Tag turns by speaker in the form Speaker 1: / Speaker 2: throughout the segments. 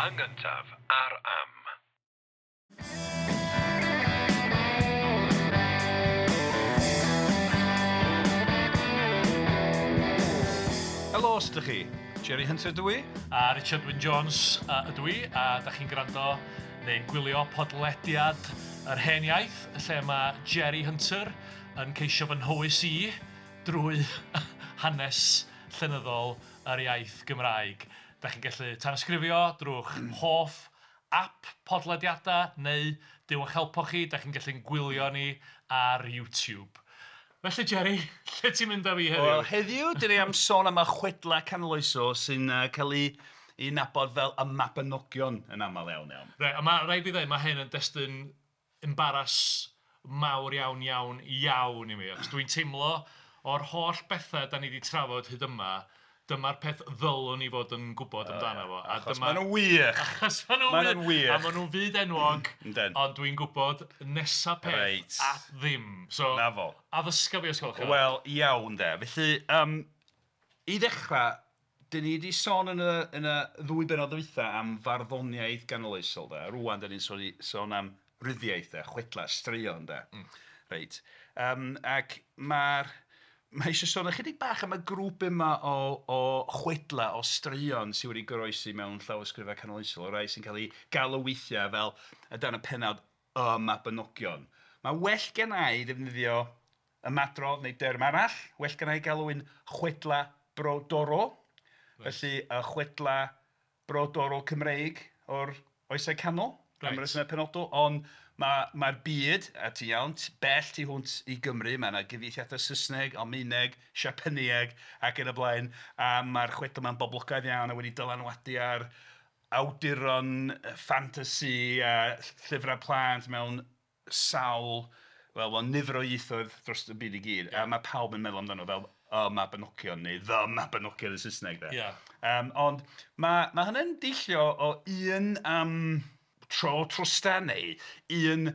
Speaker 1: Yn gyntaf ar Am.
Speaker 2: Helo, sut ydych chi? Jerry Hunter dw i.
Speaker 3: A Richard Wyn Jones ydw i, a da chi'n gwrando neu'n gwylio podlediad Yr Hen Iaith, lle mae Jerry Hunter yn ceisio fy nhywys i drwy hanes llenyddol yr iaith Gymraeg. Da chi'n gallu tanysgrifio drwy'ch hoff app podlediadau neu Duw a'ch helpo chi, da chi'n gallu'n gwylio ni ar YouTube. Felly Jerry, lle ti'n mynd â fi heddiw?
Speaker 2: Wel, heddiw, dan ni am sôn am y chwedlau canoloesol sy'n cael eu nabod fel y Mabinogion yn aml iawn iawn.
Speaker 3: Reit, a mae rhaid fi ddweud, mae hyn yn destun embaras mawr iawn iawn iawn i mi. Achos dwi'n teimlo o'r holl bethau dan ni 'di trafod hyd yma, dyma'r peth ddylwn i fod yn gwybod amdano fo.
Speaker 2: A Achos maen nhw'n wych!
Speaker 3: Achos maen nhw'n
Speaker 2: Maen nhw'n wych!
Speaker 3: A maen nhw'n fyd enwog.
Speaker 2: Yndyn.
Speaker 3: Ond dwi'n gwybod nesa peth
Speaker 2: Reit.
Speaker 3: at ddim. So,
Speaker 2: 'Na fo.
Speaker 3: Addysga fi os gwelwch yn dda.
Speaker 2: Wel, iawn de. Felly, yym, i ddechrau, dan ni 'di sôn yn y yn y ddwy bennod ddwytha am farddoniaeth ganoloesol de. A rŵan dan ni'n sôn sôn am ryddiaith de, chwedlau, straeon de. Reit. Yym, ac mae'r... Mae eisiau sôn ychydig bach am y grŵp yma o o chwedlau, o straeon sy wedi goroesi mewn llawysgrifau canoloesol, y rhai sy'n cael eu galw weithiau fel o dan y pennawd Y Mabinogion. Mae'n well genna i ddefnyddio ymadrodd neu derm arall, well genna i galw'n chwedlau brodorol. Felly y chwedlau brodorol Cymreig o'r Oesau Canol, am resymau penodol, ond mae'r byd, a ti'n iawn, bell tu hwnt i Gymru, mae 'na gyfieithiadau Saesneg, Almaeneg, Siapanëg ac yn y blaen, a mae'r chwedlau 'ma'n boblogaidd iawn a wedi dylanwadu ar awduron ffantasi a llyfrau plant mewn sawl, wel mewn nifer o ieithoedd dros y byd i gyd. A mae pawb yn meddwl amdano fel Y Mabinogion neu The Mabinogion yn Saesneg de. Ond mae mae hynny'n deillio o un yym tro trwstan neu un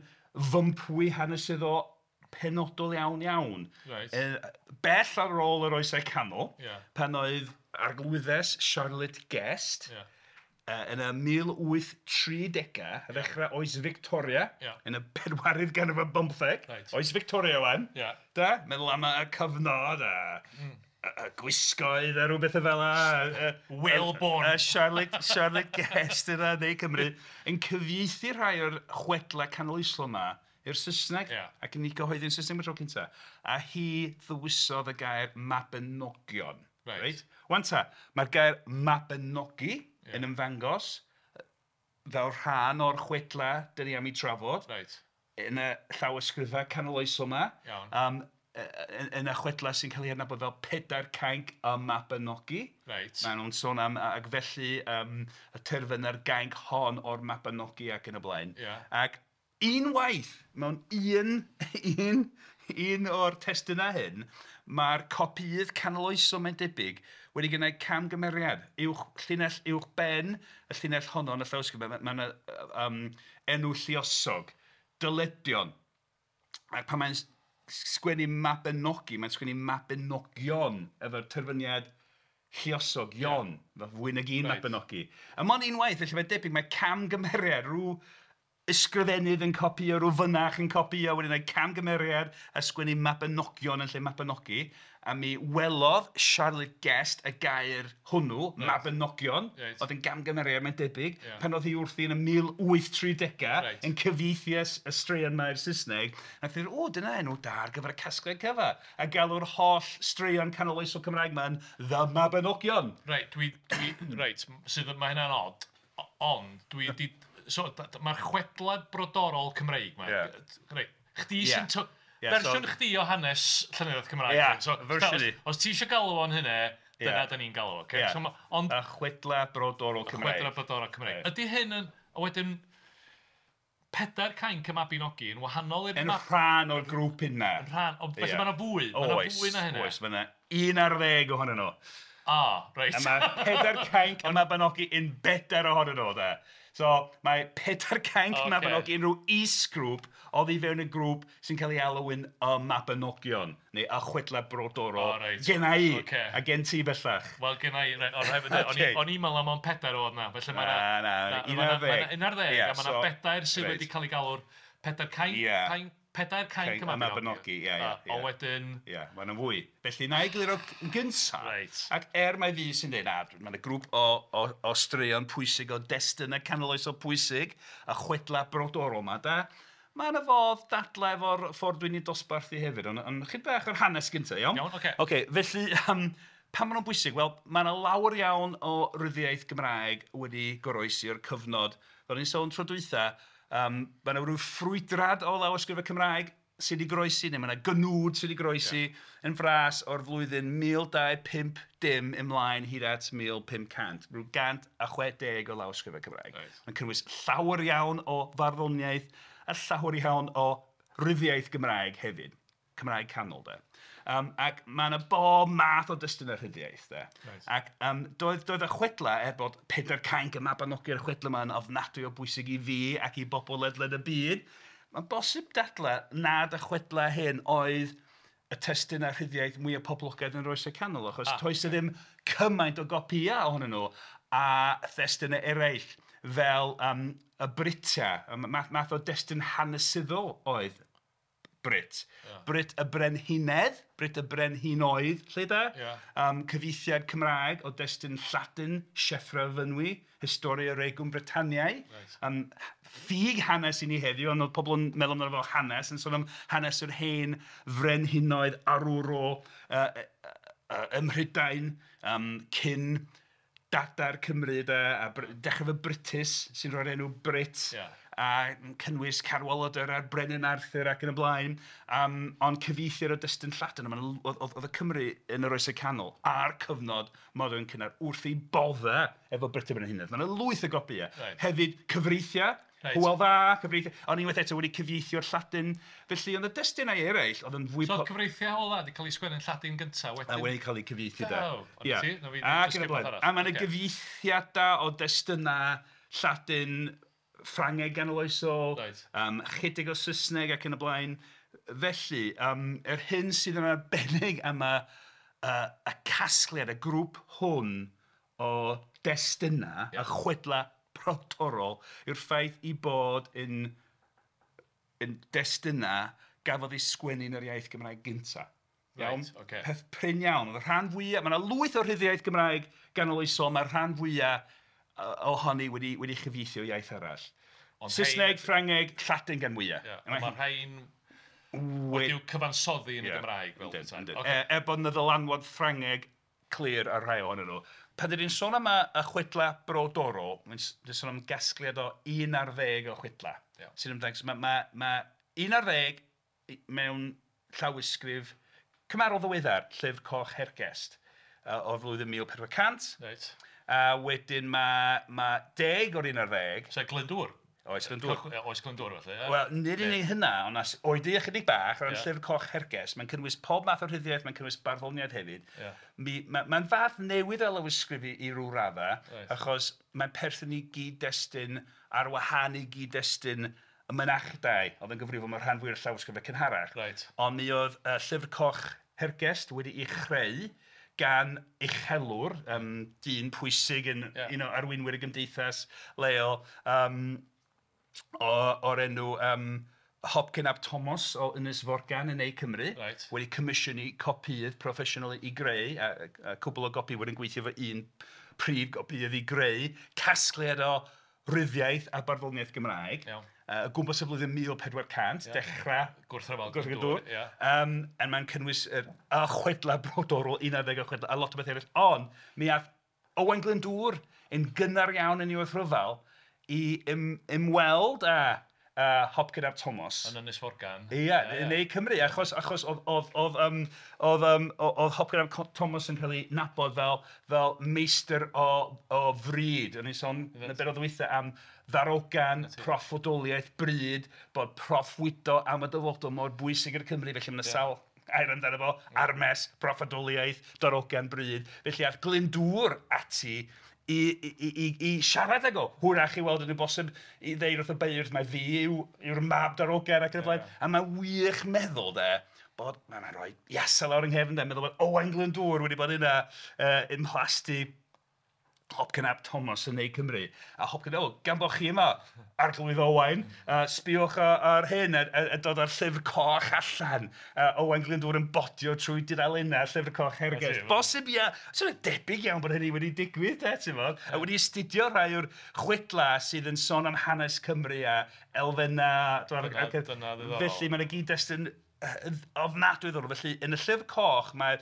Speaker 2: fympwy hanesyddol penodol iawn iawn. Bell ar ôl yr Oesau Canol, pan oedd arglwyddes Charlotte Guest yn y 1830au, ar ddechrau oes Victoria, yn y bedwaredd ganrif ar bymtheg, oes Victoria 'wan, de, meddwl am y cyfnod a y gwisgoedd a rhyw bethau fel 'na.
Speaker 3: Whalebone.
Speaker 2: A Charlotte, Charlotte Guest yna yn Ne Cymru yn cyfieithu rhai o'r chwedlau canoloesol 'ma i'r Saesneg ac yn eu cyhoeddi yn Saesneg am y tro cyntaf. A hi ddewisodd y gair Mabinogion. Reit. 'Wan ta, mae'r gair Mabinogi yn ymddangos fel rhan o'r chwedlau dan ni am eu trafod yn y llawysgrifau canoloesol 'ma. Yn y chwedlau sy'n cael eu hadnabod fel Pedair Cainc y Mabinogi. Maen nhw'n sôn am, ac felly y terfyna'r gainc hon o'r Mabinogi ac yn y blaen. Ac unwaith mewn un un un o'r testunau hyn, mae'r copïydd canoloesol mae'n debyg wedi gwneud camgymeriad. Uwch, llinell uwch ben y llinell honno yn y llawysgrif, mae 'na enw lluosog, dyledion. Ac pan mae'n sgwennu Mabinogi, mae'n sgwennu Mabinogion efo'r terfyniad lluosog, ion, fel fwy nag un Mabinogi. A mond unwaith, felly mae'n debyg mae camgymeriad, rhyw ysgrifennydd yn copïo, rhyw fynach yn copïo, wedi gwneud camgymeriad a sgwennu Mabinogion yn lle Mabinogi. A mi welodd Charlotte Guest y gair hwnnw, Mabinogion, oedd yn gamgymeriad mae'n debyg, pan oedd hi wrthi yn y 1830au yn cyfieithu y straeon 'ma i'r Saesneg, wnaeth hi ddweud, "O, dyna enw da ar gyfer y casgliad cyfa", a galw'r holl straeon canoloesol Cymraeg 'ma yn The Mabinogion.
Speaker 3: Reit, dwi, dwi, reit, sydd, mae hynna'n od, ond dwi 'di... So mae'r chwedlau brodorol Cymreig 'ma... Reit, chdi sy'n... Fersiwn chdi o hanes llenyddiaeth Cymraeg.
Speaker 2: Ia, fersiwn i.
Speaker 3: Os ti isio galw fo'n hynna, dyna dan ni'n galw fo, ocê?
Speaker 2: Ia, y chwedlau brodorol Cymreig.
Speaker 3: Chwedlau brodorol Cymreig. Ydy hyn yn... A wedyn, Pedair Cainc y Mabinogi yn wahanol i'r...
Speaker 2: Yn rhan o'r grŵp yna.
Speaker 3: Yn rhan, ond felly mae 'na fwy, mae 'na fwy na hynna.
Speaker 2: Oes, oes, mae 'na 11 ohonyn nhw.
Speaker 3: Ah, reit.
Speaker 2: A mae Pedair Cainc y Mabinogi yn bedair ohonyn nhw, de. So mae Pedair Cainc y Mabinogi yn rhyw is-grŵp oddi fewn y grŵp sy'n cael ei alw yn y Mabinogion, neu y Chwedlau Brodorol.
Speaker 3: O, reit.
Speaker 2: Genna i, a gen ti bellach.
Speaker 3: Wel, genna i, reit, o, rhaid fi ddeud, o'n i'n meddwl am ond pedair oedd 'na, felly mae 'na...
Speaker 2: Na, na, un ar ddeg.
Speaker 3: Mae 'na un ar ddeg, a mae 'na bedair sydd wedi cael eu galw'r Pedair Cainc... Pedair Cainc y
Speaker 2: Mabinogi, ia, ia.
Speaker 3: Ond wedyn...
Speaker 2: Ia, mae yna fwy. Felly, na i egluro yn gynta.
Speaker 3: Reit.
Speaker 2: Ac er mai fi sy'n dweud, na, mae yna grŵp o straeon pwysig, o destunau canoloesol pwysig, a chwedlau brodorol 'ma, de. Mae yna fodd dadlau efo'r ffordd dwi'n ei dosbarthu hefyd, ond chydig bach o'r hanes gynta, iawn?
Speaker 3: Iawn, ocê.
Speaker 2: Ocê, felly, pam maen nhw'n bwysig? Wel, mae yna lawer iawn o ryddiaith Gymraeg wedi goroesi o'r cyfnod, fel o'n i'n sôn tro dwytha, mae yna ryw ffrwydrad o lawysgrifau Cymraeg sydd wedi goroesi, neu mae yna gnwd sydd wedi goroesi yn fras o'r flwyddyn 1250 ymlaen hyd at 1500, rhyw 160 o lawysgrifau Cymraeg. Mae'n cynnwys llawer iawn o farddoniaeth a llawer iawn o ryddiaith Gymraeg hefyd, Cymraeg canol de. Ac mae yna bob math o destunau rhyddiaith de. Ac doedd y chwedlau, er bod Pedair Cainc y Mabinogi a'r chwedlau yma yn ofnadwy o bwysig i fi ac i bobl ledled y byd, mae'n bosib dadlau nad y chwedlau hyn oedd y testunau rhyddiaith mwyaf poblogaidd yn yr Oesau Canol, achos toes 'na ddim cymaint o gopïau ohonyn nhw a thestunau eraill fel y Britiau, math o destun hanesyddol oedd Brit. Brit y Brenhinedd, Brit y Brenhinoedd, lle de? Cyfieithiad Cymraeg o destun Lladin, Sieffre o Fynwy, Historia Regum Britanniae. Ffug hanes i ni heddiw, ond oedd pobl yn meddwl amdano fel hanes, yn sôn am hanes yr hen frenhinoedd arwrol ym Mhrydain cyn dada'r Cymru de, a dechrau efo Brutus sy'n rhoi'r enw Brit. A cynnwys Cadwaladr a'r Brenin Arthur ac yn y blaen, ond cyfieithiad o destun Lladin, oedd y Cymry yn yr Oesau Canol a'r cyfnod modern cynnar wrth eu boddau efo Brut y Brenhinedd. Mae yna lwyth o gopïau. Hefyd cyfreithiau, Hywel Dda, cyfreithiau, ond unwaith eto wedi cyfieithio'r Lladin. Felly oedd y destunau eraill oedd yn fwy...
Speaker 3: So oedd cyfreithiau Hywel Dda wedi cael eu sgwennu'n Lladin gyntaf wedyn?
Speaker 2: A wedi cael eu cyfieithu de. Ac yn y blaen. A mae yna gyfieithiadau o destunau Lladin, Ffrangeg ganoloesol, chydig o Saesneg ac yn y blaen. Felly, yr hyn sydd yn arbennig am y casgliad, y grŵp hwn o destunau, y chwedlau brodorol, yw'r ffaith eu bod yn destunau gafodd eu sgwennu yn yr iaith Gymraeg gyntaf. Iawn? Peth prin iawn. Oedd y rhan fwyaf, mae yna lwyth o rhyddiaith Gymraeg ganoloesol, mae'r rhan fwyaf ohoni wedi chyfieithu o iaith arall. Saesneg, Ffrangeg, Lladin gan mwyaf.
Speaker 3: Ond mae'r rhain wedi'w cyfansoddi yn y Gymraeg.
Speaker 2: Er bod yna ddylanwad Ffrangeg clir ar rhai ohonyn nhw. Pan dyn ni'n sôn am y chwedlau brodorol, mae'n sôn am gasgliad o 11 o chwedlau. Sy'n ymddangos, mae 11 mewn llawysgrif cymharol ddiweddar, Llyfr Coch Hergest, o'r flwyddyn 1400.
Speaker 3: Reit.
Speaker 2: A wedyn mae 10 o'r 11.
Speaker 3: Sef Glyndŵr.
Speaker 2: Oes Glyndŵr.
Speaker 3: Oes Glyndŵr felly.
Speaker 2: Wel, nid unig hynna, ond oedi ychydig bach o ran Llyfr Coch Hergest. Mae'n cynnwys pob math o rhyddiaith, mae'n cynnwys barddoniaeth hefyd. Mae'n fath newydd o lawysgrif i ryw raddau, achos mae'n perthyn i gyd-destun ar wahân i gyd-destun y mynachdai, oedd yn gyfrifol mewn rhan fwyaf o'r llawysgrifau cynharach. Ond mi oedd Llyfr Coch Hergest wedi'i chreu gan uchelwr, dyn pwysig yn un o arweinwyr y gymdeithas leol, o'r enw Hopcyn ap Thomas o Ynys Forgan yn Ne Cymru, wedi comisiynu copïydd proffesiynol i greu, a cwbl o gopïwyr yn gweithio efo un prif gopïydd i greu casgliad o ryddiaith a barddoniaeth Gymraeg. O gwmpas y flwyddyn 1400, dechrau
Speaker 3: Gwrthryfel Glyndŵr.
Speaker 2: A mae'n cynnwys y chwedlau brodorol, 11 o chwedlau, a lot o bethau eraill. Ond mi aeth Owain Glyndŵr yn gynnar iawn yn ei wrthryfel i ymweld â Hopcyn ap Thomas.
Speaker 3: Yn Ynys Forgan.
Speaker 2: Ie, yn Ne Cymru, achos oedd Hopcyn ap Thomas yn cael ei nabod fel meistr o fryd. O'n i'n sôn yn y bennod dwytha am ddarogan, proffwydoliaeth, bryd, bod proffwydo am y dyfodol mor bwysig i'r Cymru, felly mae 'na sawl air amdano fo, armes, proffwydoliaeth, darogan bryd. Felly aeth Glyndŵr ati i siarad ag o. Hwyrach i weld yn bosib i ddeud wrth y beirdd mai fi yw'r mab darogan ac yn y blaen. A mae'n wych meddwl de, bod mae'n rhoi iasa lawr yng nghefn de, meddwl bod Owain Glyndŵr wedi bod yna ym mhlasty Hopcyn ap Thomas yn Ne Cymru. A Hopcyn, o, gan bod chi yma, Arglwydd Owain, sbiwch ar hyn, a dod â'r llyfr coch allan. Owain Glyndŵr yn bodio trwy dudalennau llyfr coch Hergest. Bosib, ia, sy'n debyg iawn bod hynny wedi digwydd, de, ti'n fod? A wedi astudio rhai o'r chwedlau sydd yn sôn am hanes Cymru a elfennau.
Speaker 3: Dyna ddiddorol.
Speaker 2: Felly mae'n gyd-destun ofnadwy ddiddorol. Felly yn y llyfr coch mae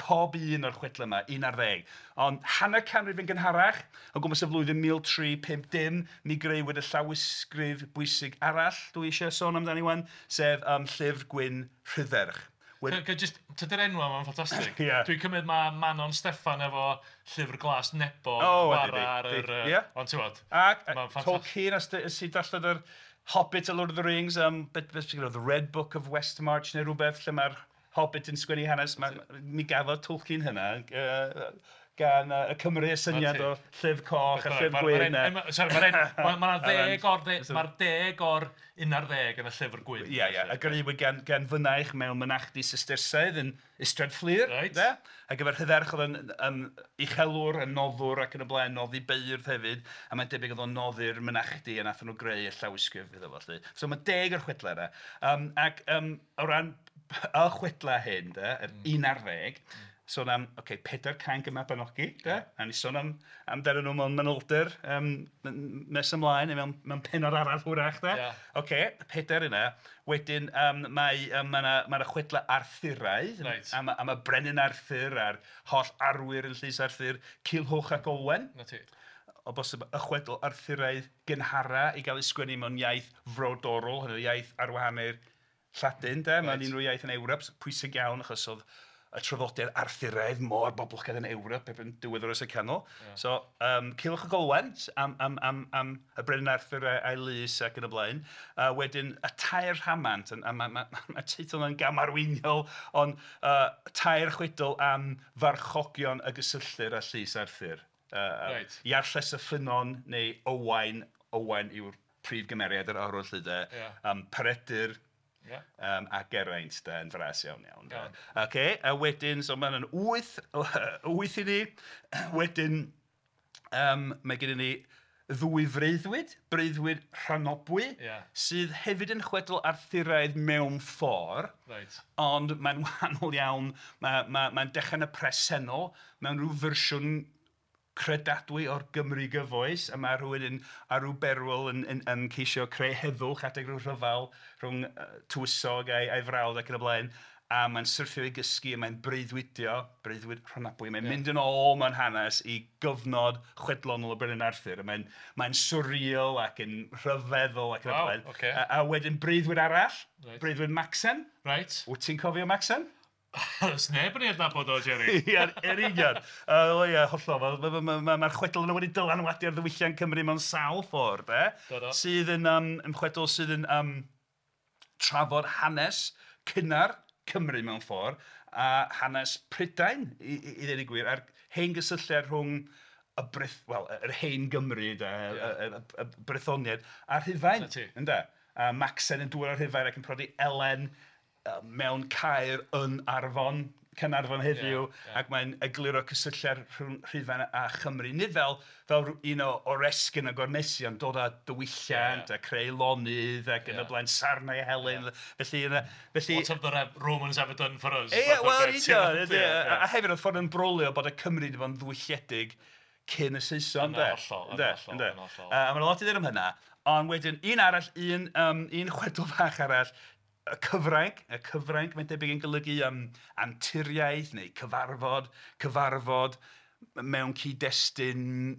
Speaker 2: pob un o'r chwedlau yma, 11. Ond hanner canrif yn gynharach, o gwmpas y flwyddyn 1350, mi grëwyd y llawysgrif bwysig arall dwi eisiau sôn amdani wan, sef Llyfr Gwyn Rhydderch.
Speaker 3: Tydi'r enw yma'n ffantastig. Dwi'n cymryd mae Manon Steffan efo Llyfr Glas Nebo ar yr... Ond ti'n gwbod,
Speaker 2: ac Tolkien, os ti'n darllen yr Hobbit a Lord of the Rings, the Red Book of Westmarch neu rhywbeth lle mae'r Hobbit yn sgwennu hanes, mi gafodd Tolkien hynna gan y Cymry y syniad o llyfr coch a llyfr gwyn.
Speaker 3: Sori, mae'r 10 o'r 11 yn y llyfr gwyn.
Speaker 2: Ie, ie, a grëwyd gan fynaich mewn mynachdy Sistersaidd yn Ystrad Fflur. A gyfer Rhydderch oedd yn uchelwr, yn noddwr ac yn y blaen, noddi beirdd hefyd. A mae'n debyg oedd o'n noddi'r mynachdy a nath nhw greu y llawysgrif iddo fo. So mae 10 o'r chwedlau yna. Ac o ran y chwedlau hyn, yr 11, sôn am, pedair cainc y Mabinogi, de? A ni sôn amdanyn nhw mewn manylder nes ymlaen, neu mewn pennod arall hwyrach, de? Ocê, pedair yna. Wedyn mae yna chwedlau Arthuraidd, am y brenin Arthur a'r holl arwyr yn llys Arthur, Culhwch ac Olwen. O bosib y chwedl Arthuraidd gynhara i gael ei sgwennu mewn iaith frodorol, hynny iaith ar wahân i'r Lladin, de? Mae'n unrhyw iaith yn Ewrop, pwysig iawn achos oedd y traddodiad Arthuraidd mor boblogaidd yn Ewrop erbyn diwedd yr Oesau Canol. So, Culhwch ac Olwen am y brenin Arthur a'i lys ac yn y blaen. Wedyn, y tair rhamant, a mae'r teitl yna'n gamarweiniol, ond tair chwedl am farchogion y gysylltir â llys Arthur. Iarlles y Ffynnon neu Owain, Owain yw'r prif gymeriad yr arwr lly de. Peredur, a Geraint de, yn fras iawn iawn. Ocê, a wedyn, so mae'n 8 i ni. Wedyn, mae gennym ni ddwy freuddwyd, breuddwyd Rhonabwy, sydd hefyd yn chwedl Arthuraidd mewn ffordd, ond mae'n wahanol iawn, mae'n dechrau yn y presennol, mewn rhyw fersiwn credadwy o'r Gymru gyfoes, a mae rhywun ar ryw berwyl yn ceisio creu heddwch adeg rhyw rhyfel rhwng tywysog a'i frawd ac yn y blaen, a mae'n syrthio i gysgu a mae'n breuddwydio, breuddwyd Rhonabwy, mae'n mynd yn ôl mewn hanes i gyfnod chwedlonol y brenin Arthur, a mae'n surreal ac yn rhyfeddol ac yn y blaen. A wedyn breuddwyd arall, breuddwyd Macsen. Wyt ti'n cofio Macsen?
Speaker 3: Oes neb yn ei adnabod o, Jerry.
Speaker 2: Ie, yn union. Ie, hollol. Mae'r chwedl yna wedi dylanwadu ar ddiwylliant Cymru mewn sawl ffordd, de. Sydd yn chwedl sydd yn trafod hanes cynnar Cymru mewn ffordd, a hanes Prydain, i ddweud y gwir, a'r hen gysylltiad rhwng yr hen Gymru, de, y Brythoniaid, a'r Rhufain. Ynde? A Macsen yn dŵad o'r Rhufain ac yn prodi Elen mewn caer yn Arfon, Caernarfon heddiw, ac mae'n egluro cysylltiad rhwng Rhufain a Chymru. Nid fel un o oresgyn a gormesu, ond dod â diwylliant a creu lonydd ac yn y blaen, sarnau Helen. Felly,
Speaker 3: What have the Romans ever done for us?
Speaker 2: Ie, wel, union. A hefyd oedd ffordd yn brolio bod y Cymru wedi bod yn ddiwylliedig cyn y Saeson.
Speaker 3: Yn hollol, yn hollol.
Speaker 2: A mae'n lot i ddweud am hynna. Ond wedyn, un arall, un chwedl fach arall, y cyfrainc, mae'n debyg yn golygu anturiaeth neu cyfarfod mewn cyd-destun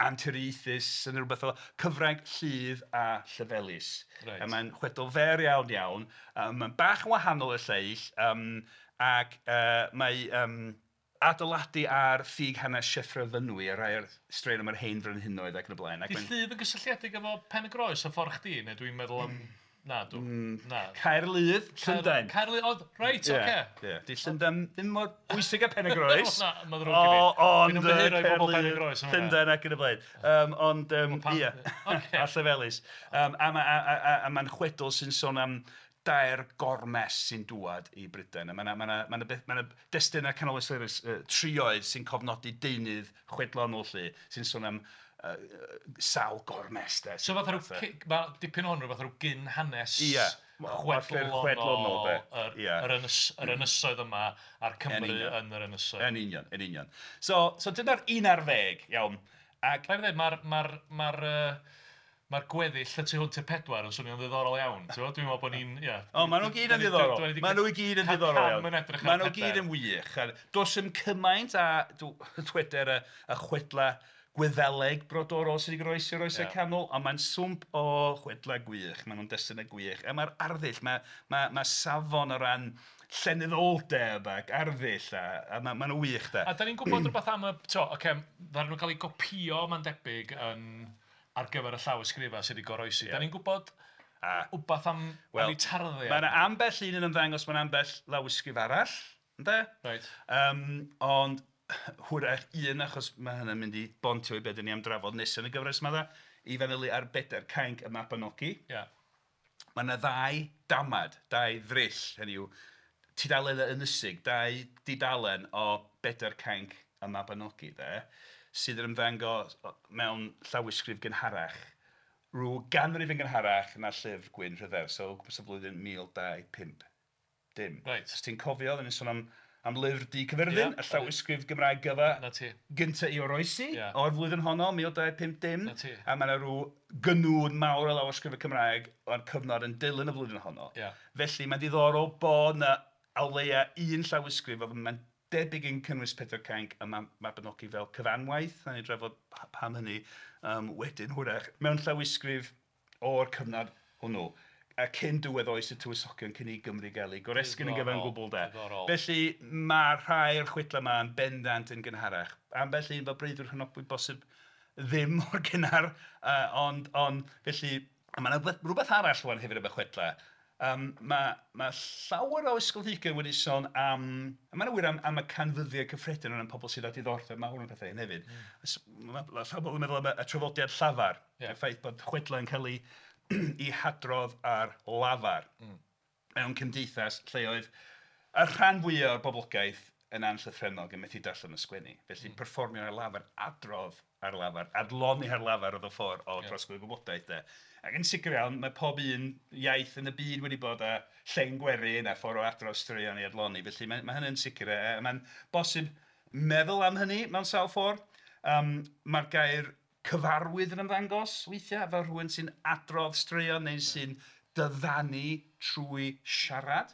Speaker 2: anturiaethus yn rhywbeth fel cyfrainc, Lludd a Llefelys. A mae'n chwedl fer iawn iawn, mae'n bach yn wahanol i'r lleill, ac mae adeiladu ar ffug hanes Sieffre Fynwy a rhai o'r straeon am yr hen frenhinoedd ac yn y blaen.
Speaker 3: Di Lludd yn gysylltiedig efo Pen y Groes a ffordd chdi, neu dwi'n meddwl am... Na, dw. Na.
Speaker 2: Caerludd, Llundain.
Speaker 3: Caerludd, oedd, reit, oce.
Speaker 2: Ie. Di Llundain ddim mor bwysig â Pen-y-groes.
Speaker 3: Na, mae'n ddrwg i fi.
Speaker 2: Ond
Speaker 3: Dwi'n ymddiheuro i bobl Pen-y-groes am hwnna.
Speaker 2: Llundain ac yn y blaen. Ond, ie, a Llefelys. A mae'n chwedl sy'n sôn am dair gormes sy'n dŵad i Brydain. A mae yna destunau canoloesol eraill, trioedd sy'n cofnodi deunydd chwedlonol 'lly, sy'n sôn am sawl gormes de.
Speaker 3: So fatha rhyw, mae dipyn o hwn rhywbeth rhyw gyn hanes
Speaker 2: chwedlonol
Speaker 3: yr ynysoedd yma a'r Cymru yn yr ynysoedd.
Speaker 2: Yn union, yn union. So dyna'r 11, iawn.
Speaker 3: Ac rhaid i ddweud, mae'r gweddill y tu hwnt i'r 4 yn swnio'n ddiddorol iawn. Dwi'n meddwl bod ni'n...
Speaker 2: O, maen nhw gyd yn ddiddorol. Maen nhw i gyd yn ddiddorol iawn. Maen nhw gyd yn wych. Does dim cymaint a dweder y chwedla Gwyddeleg brodorol sydd wedi goroesi o'r Oesau Canol, ond mae'n swmp o chwedlau gwych, maen nhw'n destunau gwych. A mae'r arddull, mae safon o ran llenyddoldeb ac arddull, a maen nhw'n wych de.
Speaker 3: A da ni'n gwybod rhywbeth am y... Ocê, ddaru nhw gael eu copïo, mae'n debyg, ar gyfer y llawysgrifau sydd wedi goroesi. Da ni'n gwybod wbath am eu tarddiad?
Speaker 2: Mae yna ambell un yn ymddangos mewn ambell lawysgrif arall, ynde?
Speaker 3: Reit.
Speaker 2: Ond hwyrach un, achos mae hynny'n mynd i bontio i be dan ni am drafod nesaf yn y gyfres yma, i fanylu ar bedair cainc y Mabinogi.
Speaker 3: Yeah.
Speaker 2: Mae yna ddau damad, dau ddryll, hynny yw tudalennau ynysig, dau dudalen o bedair cainc y Mabinogi, de, sydd yn ymddangos mewn llawysgrif gynharach, rhyw ganrif yn gynharach na Llyfr Gwyn Rhydderch, so o gwmpas y flwyddyn 1250.
Speaker 3: Right.
Speaker 2: Os ti'n cofio, oedden ni'n sôn am Lyfr Du Caerfyrddin, y llawysgrif Gymraeg gyfa gynta i oroesi o'r flwyddyn honno, 1250. A mae yna rhyw gynwd mawr o lawysgrifau Cymraeg o'r cyfnod yn dilyn y flwyddyn honno. Felly mae'n diddorol bod yna o leia un llawysgrif, oedd mae'n debyg yn cynnwys Pedair Cainc y Mabinogi fel cyfanwaith, na ni drafod pam hynny wedyn hwyrach, mewn llawysgrif o'r cyfnod hwnnw. A cyn diwedd oes y tywysogion, cyn i Gymru gael ei goresgyn yn gyfan gwbl de. Felly mae rhai o'r chwedlau yma yn bendant yn gynharach. Ambell un fel Breuddwyd Rhonabwy bosib ddim mor gynnar, ond felly mae yna rhywbeth arall rwan hefyd am y chwedlau. Mae llawer o ysgolheigion wedi sôn am, a mae'n wir am y canfyddiad cyffredin o ran pobl sydd â diddordeb mawr yn pethau hyn hefyd. Mae llawer o bobl yn meddwl am y traddodiad llafar, y ffaith bod chwedlau yn cael ei i hadrodd ar lafar mewn cymdeithas lle oedd y rhan fwyaf o'r boblogaeth yn anllythrennog yn methu darllen y sgwennu. Felly perfformio ar lafar, adrodd ar lafar, adloni ar lafar oedd y ffordd o drosglwyddo gwybodaeth de. Ac yn sicr iawn, mae pob un iaith yn y byd wedi bod â llen gwerin a ffordd o adrodd straeon i adloni. Felly mae hynny'n sicr, a mae'n bosib meddwl am hynny mewn sawl ffordd. Mae'r gair cyfarwydd yn ymddangos weithiau, fel rhywun sy'n adrodd straeon neu sy'n dyddanu trwy siarad.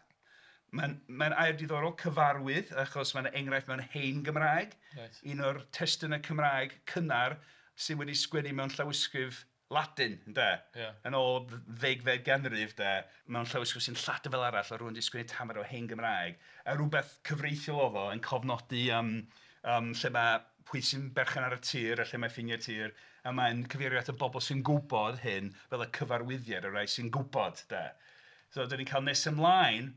Speaker 2: Mae'n air diddorol, cyfarwydd, achos mae'n enghraifft mewn hen Gymraeg.
Speaker 3: Right.
Speaker 2: Un o'r testunau Cymraeg cynnar sydd wedi sgwennu mewn llawysgrif Ladin, ynde?
Speaker 3: Yeah.
Speaker 2: Yn ôl ddegfed ganrif, de, mewn llawysgrif sy'n Lladin fel arall, a rhywun wedi sgwennu tamed o hen Gymraeg. A rhywbeth cyfreithiol oedd o yn cofnodi lle mae pwy sy'n berchen ar y tir a lle mae ffiniau'r tir, a mae'n cyfeirio at y bobl sy'n gwybod hyn fel y cyfarwyddiad, y rhai sy'n gwybod, de. So, dyn ni'n cael nes ymlaen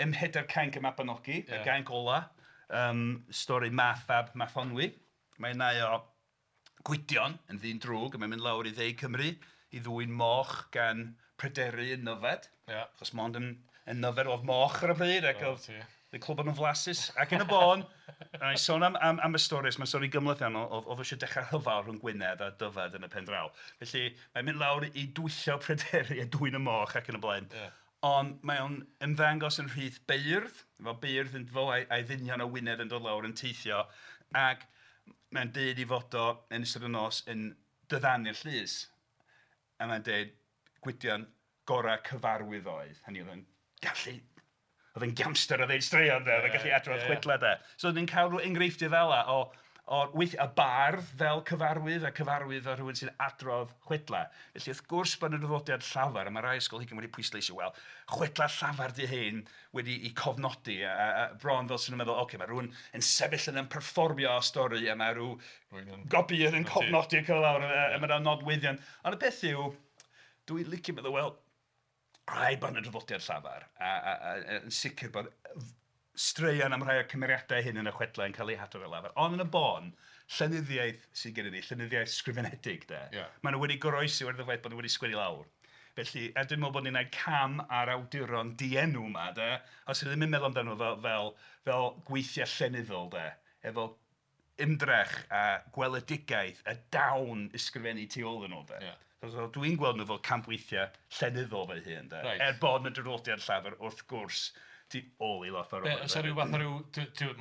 Speaker 2: ym Mhedair Cainc y Mabinogi, y gainc ola, stori Math fab Mathonwy. Mae'n nai o Gwydion yn ddyn drwg, a mae'n mynd lawr i dde Cymru i ddwyn moch gan Pryderi yn Nyfed. Achos mond yn Nyfed oedd moch ar y pryd, ac oedd y clwb yn flasus, ac yn y bôn, a i sôn am y stori, mae'n stori gymhleth iawn, oedd eisiau dechrau rhyfel rhwng Gwynedd a Dyfed yn y pen draw. Felly mae'n mynd lawr i dwyllo Pryderi a dwyn y moch ac yn y blaen. Ond mae o'n ymddangos yn rhith beirdd, fel beirdd yn fo a'i ddynion o Wynedd yn dod lawr yn teithio, ac mae'n deud i fod o yn ystod y nos yn diddanu'r llys. A mae'n deud Gwydion gorau cyfarwydd oedd. Hynny oedd yn gallu... Oedd yn gamster o ddeud straeon, de, oedd yn gallu adrodd chwedlau, de. So ni'n cael rhyw enghreifftiau fel 'na o weithiau y bardd fel cyfarwydd a cyfarwydd o rhywun sy'n adrodd chwedlau. Felly wrth gwrs bod yna draddodiad llafar, a mae rai ysgolheigion wedi pwysleisio, wel, chwedlau llafar di hyn wedi i cofnodi, a bron fel sy'n meddwl, oce, mae rhywun yn sefyll yna'n perfformio stori, a mae rhyw gopïydd yn cofnodi ac lawr, a mae yna nodweddion. Ond y peth yw, dwi'n licio meddwl, wel, Rhaid bod yna draddodiad llafar, a yn sicr bod straeon am rhai o'r cymeriadau hyn yn y chwedlau yn cael eu hadrodd ar lafar. Ond yn y bôn, llenyddiaeth sydd gennym ni, llenyddiaeth sgrifenedig de. Maen nhw wedi goroesi oherwydd y ffaith bod nhw wedi sgwennu lawr. Felly, a dwi'n meddwl bod ni'n gwneud cam ar awduron dienw yma de, os ydym ddim yn meddwl amdano nhw fel gweithiau llenyddol de, efo ymdrech a gweledigaeth a dawn ysgrifennu tu ôl iddyn nhw de. So, dwi'n gweld nhw fel campweithiau llenyddol fy hun de. Er bod yna draddodiad llafar wrth gwrs tu ôl i lot o'r
Speaker 3: Be, oes 'na ryw fath o ryw...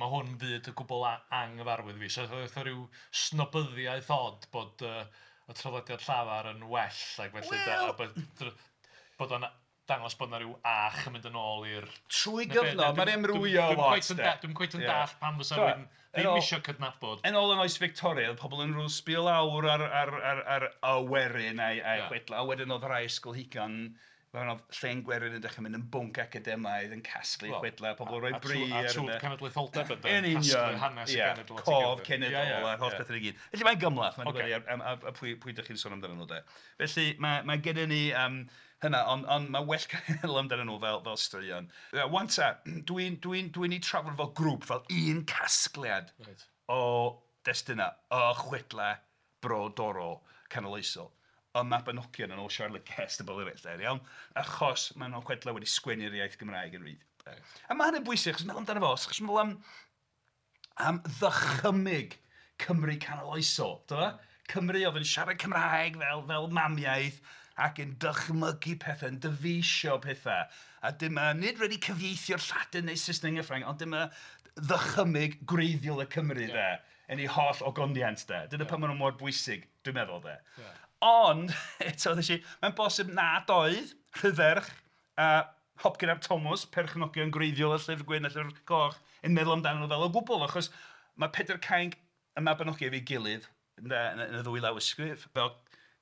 Speaker 3: Mae hwn yn fyd gwbl anghyfarwydd i fi. So fatha ryw snobyddiaeth od bod y traddodiad llafar yn well ac felly...
Speaker 2: Wel...
Speaker 3: Bod o'n dangos bod 'na ryw ach yn mynd yn ôl i'r...
Speaker 2: Trwy gyfnod, mae'n amrywio lot de.
Speaker 3: Dwi'm cweit yn dallt pam fysa rhywun ddim isio cydnabod.
Speaker 2: Yn ôl yn oes Victoria, oedd pobl yn rhyw sbio lawr ar y werin a'i chwedlau. A wedyn oedd rhai ysgolheigion, fel oedd llen gwerin yn dechrau mynd yn bwnc academaidd, yn casglu chwedlau, pobl yn rhoi bri
Speaker 3: ar... A twf cenedlaetholdeb yn
Speaker 2: Yn union,
Speaker 3: casglu hanes y genedl at ei
Speaker 2: cof
Speaker 3: gilydd.
Speaker 2: Cenedl a'r holl bethau i gyd. Felly mae'n gymhleth, mae'n dibynnu ar pwy ydych chi'n sôn amdanyn nhw de. Felly mae gennym ni hynna, ond mae well cael meddwl amdanyn nhw fel straeon. 'Wan ta, dwi'n eu trafod fel grŵp, fel un casgliad o destunau, o chwedlau brodorol canoloesol. Y Mabinogion yn ôl Charlotte Guest a bobl eraill, de, iawn? Achos maen nhw'n chwedlau wedi sgwennu'r iaith Gymraeg yn rhydd. A mae hynny'n bwysig, achos meddwl amdano fo, os chi'n meddwl am ddychymyg Cymru canoloesol, do fe? Cymru oedd yn siarad Cymraeg fel mamiaith ac yn dychmygu pethau, yn dyfeisio pethau. A dyma, nid wedi cyfieithio'r Lladin neu Saesneg neu Ffrangeg, ond dyma ddychymyg gwreiddiol y Cymru, de, yn ei holl ogoniant, de. Dyna pam maen nhw mor bwysig, dwi'n meddwl, de. Ond, eto, nes i, mae'n bosib nad oedd Rhydderch a Hopcyn ap Thomas, perchnogion gwreiddiol y Llyfr Gwyn a Llyfr Coch, yn meddwl amdano nhw fel o gwbl, achos mae Pedair Cainc y Mabinogi efo'i gilydd yn y ddwy lawysgrif, fel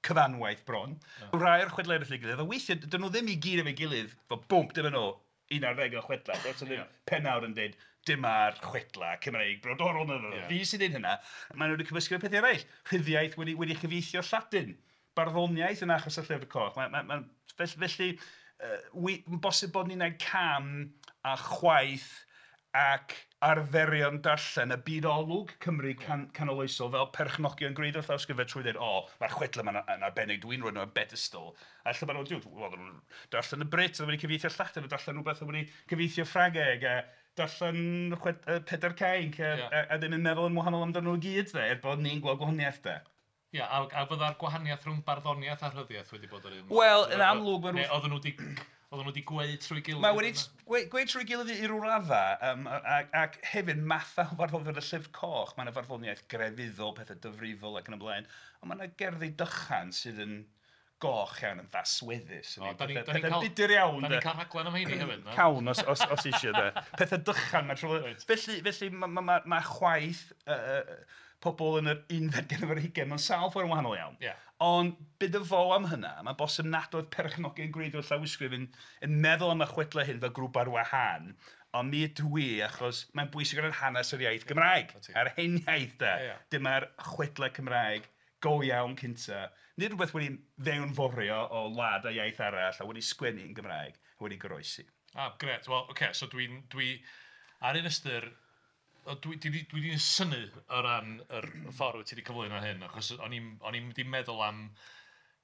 Speaker 2: cyfanwaith bron. Rhai o'r chwedlau eraill ei gilydd, a weithiau, dyn nhw ddim i gyd efo'i gilydd, fel bwmp, dyma nhw, 11 o chwedlau. Does 'na ddim pennawd yn dweud, dyma'r chwedlau Cymreig brodorol. Na, na, fi sy'n dweud hynna. Maen nhw wedi cymysgu efo pethau eraill. Rhyddiaith wedi chyfieithio Lladin. Barddoniaeth yn achos y Llyfr Coch. Felly, bosib bod ni'n gwneud cam a chwaeth ac arferion darllen y byd olwg Cymru canoloesol fel perchnogion gwreiddiol llawysgrifau trwy ddweud, o, mae'r chwedlau yma'n yn arbennig, dwi'n rhoi nhw ar bedestal. A lle maen nhw'n, wel, nhw'n darllen y Brit, oedd wedi cyfieithio Lladin, darllen rhywbeth oedd wedi cyfieithio Ffrangeg, a darllen Pedair Cainc, a ddim yn meddwl yn wahanol amdano nhw i gyd, de, er bod ni'n gweld gwahaniaeth, de.
Speaker 3: Ie, a fydda'r gwahaniaeth rhwng barddoniaeth a rhyddiaeth wedi bod yr un?
Speaker 2: Wel, yn amlwg...
Speaker 3: Neu oedden nhw wedi gweud trwy gilydd?
Speaker 2: Mae wedi gweud trwy gilydd i ryw raddau, ac hefyd mathau o farddoniaeth y Llyfr Coch. Mae yna farddoniaeth grefyddol, pethau dyfrifol ac yn y blaen, ond mae yna gerddi dychan sydd yn goch iawn, yn ddasweddus. Pethau budur iawn.
Speaker 3: Da ni'n cael rhaglen am heini hefyd, na?
Speaker 2: Cawn os eisiau, de. Pethau dychan, mae'n trwy... Felly mae chwaith pobl yn yr unfed ganrif ar hugain mewn sawl ffordd yn wahanol iawn. Ond bid y fo am hynna, mae'n bosib nad oedd perchnogion gwreiddiol llawysgrif yn meddwl am y chwedlau hyn fel grŵp ar wahân, ond mi ydw i, achos mae'n bwysig o ran hanes yr iaith Gymraeg, a'r hen iaith de. Dyma'r chwedlau Cymraeg go iawn cynta. Nid rhywbeth wedi fewnforio o wlad a iaith arall a wedi sgwennu yn Gymraeg, a wedi goroesi.
Speaker 3: Ah, gret. Wel, oce, okay, so dwi ar un ystyr, dwi 'di synnu o ran yr ffordd wyt ti wedi cyflwyno hyn, achos o'n i'm wedi meddwl am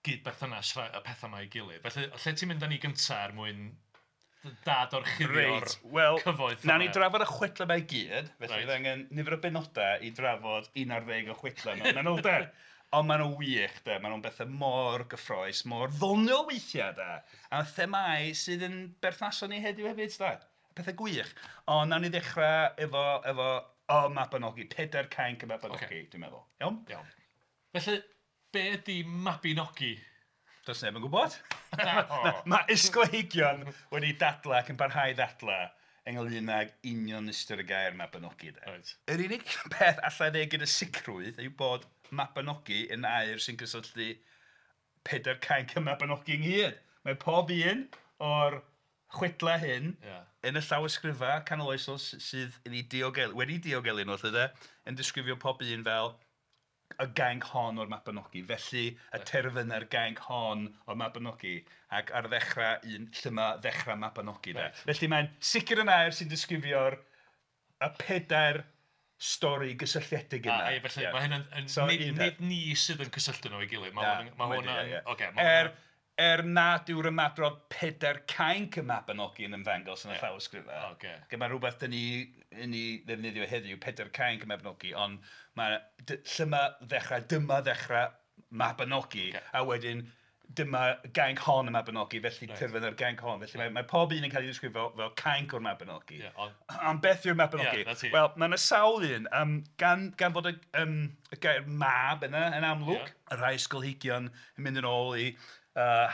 Speaker 3: gyd-berthynas y pethau yma i gilydd. Felly, lle ti'n mynd â ni gynta er mwyn dadorchuddio'r cyfoeth yma?
Speaker 2: Nawn ni drafod y chwedlau yma i gyd, felly fydd angen nifer o benodau i drafod 11 o chwedlau mewn manylder. Ond maen nhw'n wych, de. Maen nhw'n bethau mor gyffrous, mor ddoniol weithiau, de. A themâu sydd yn berthnasol ni heddiw hefyd, de. Pethau gwych. Ond nawn ni ddechrau efo y Mabinogi, Pedair Cainc y Mabinogi, dwi'n meddwl. Iawn?
Speaker 3: Iawn. Felly, be ydi Mabinogi?
Speaker 2: Does neb yn gwybod. Mae ysgolheigion wedi dadlau ac yn parhau ddadlau ynglyn ag union ystyr y gair Mabinogi. De. Yr unig peth allai ddeud gyda sicrwydd yw bod Mabinogi yn air sy'n cysylltu Pedair Cainc y Mabinogi ynghyd. Mae pob un o'r chwedlau hyn yn y llawysgrifau canoloesol sydd yn ei diogelu, wedi diogelu nhw, lle de, yn disgrifio pob un fel y gainc hon o'r Mabinogi, felly y terfyn ar gainc hon o'r Mabinogi, ac ar ddechrau un lle mae ddechrau Mabinogi de.
Speaker 3: Reit.
Speaker 2: Felly mae'n sicr yn air sy'n disgrifio'r y pedair stori gysylltiedig yna.
Speaker 3: A, ie, felly mae hyn yn
Speaker 2: So,
Speaker 3: nid,
Speaker 2: un
Speaker 3: nid
Speaker 2: peth.
Speaker 3: ni sydd yn cysylltu nhw i gilydd. Mae
Speaker 2: Na,
Speaker 3: hwn yn... Mae
Speaker 2: wedi,
Speaker 3: hwn yn
Speaker 2: ie, ie.
Speaker 3: Ocê, ma'
Speaker 2: Er,
Speaker 3: hwnna-
Speaker 2: er nad yw'r ymadrodd pedair cainc y Mabinogi yn ymddangos yn y llawysgrifau.
Speaker 3: Ocê.
Speaker 2: Mae rhywbeth dyn ni yn ei ddefnyddio heddiw, pedair cainc y Mabinogi, ond mae lle mae ddechrau, dyma ddechrau Mabinogi,
Speaker 3: Ocê.
Speaker 2: a wedyn dyma gainc hon y Mabinogi, felly terfyn ar gainc hon. Felly mae pob un yn cael ei ddisgrifio fel cainc o'r Mabinogi.
Speaker 3: Ie, ond-
Speaker 2: Ond beth yw'r Mabinogi?
Speaker 3: Ie, 'na ti.
Speaker 2: Wel, mae yna sawl un. Gan fod y gair mab yna yn amlwg,
Speaker 3: Ie.
Speaker 2: y rhai ysgolheigion yn mynd yn ôl i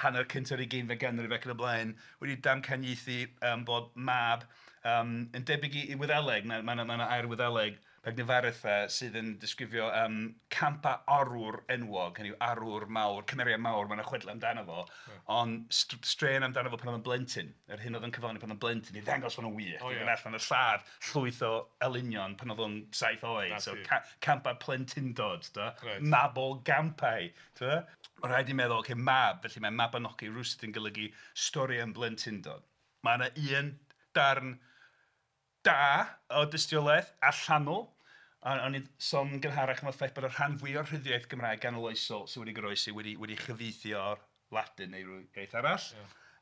Speaker 2: hanner cyntaf yr ugeinfed ganrif ac yn y blaen, wedi damcaniaethu bod mab yn debyg i Wyddeleg. Mae 'na air Wyddeleg, Pegnifaritha, sydd yn disgrifio campa arwr enwog, hynny yw arwr mawr, cymeriad mawr, mae yna chwedlau amdano fo, ond straeon amdano fo pan oedd yn blentyn, yr hyn oedd yn cyflawni pan oedd yn blentyn, i ddangos bod nhw'n wych,
Speaker 3: O,
Speaker 2: i
Speaker 3: ie.
Speaker 2: fynd allan y lladd llwyth o elynion pan oedd o'n 7 oed,
Speaker 3: Na
Speaker 2: so
Speaker 3: ti.
Speaker 2: campa plentyndod, da?
Speaker 3: Reit.
Speaker 2: Mabol gampau, t'bo? Mae rhaid i meddwl, ocê, mab, felly mae Mabinogi rywsut yn golygu stori am blentyndod. Mae yna un darn da o dystiolaeth allanol. A o'n i'n sôn gynharach am y ffaith bod y rhan fwyaf o'r rhyddiaith Gymraeg ganoloesol sydd wedi goroesi wedi chyfieithu o'r Ladin neu ryw iaith arall.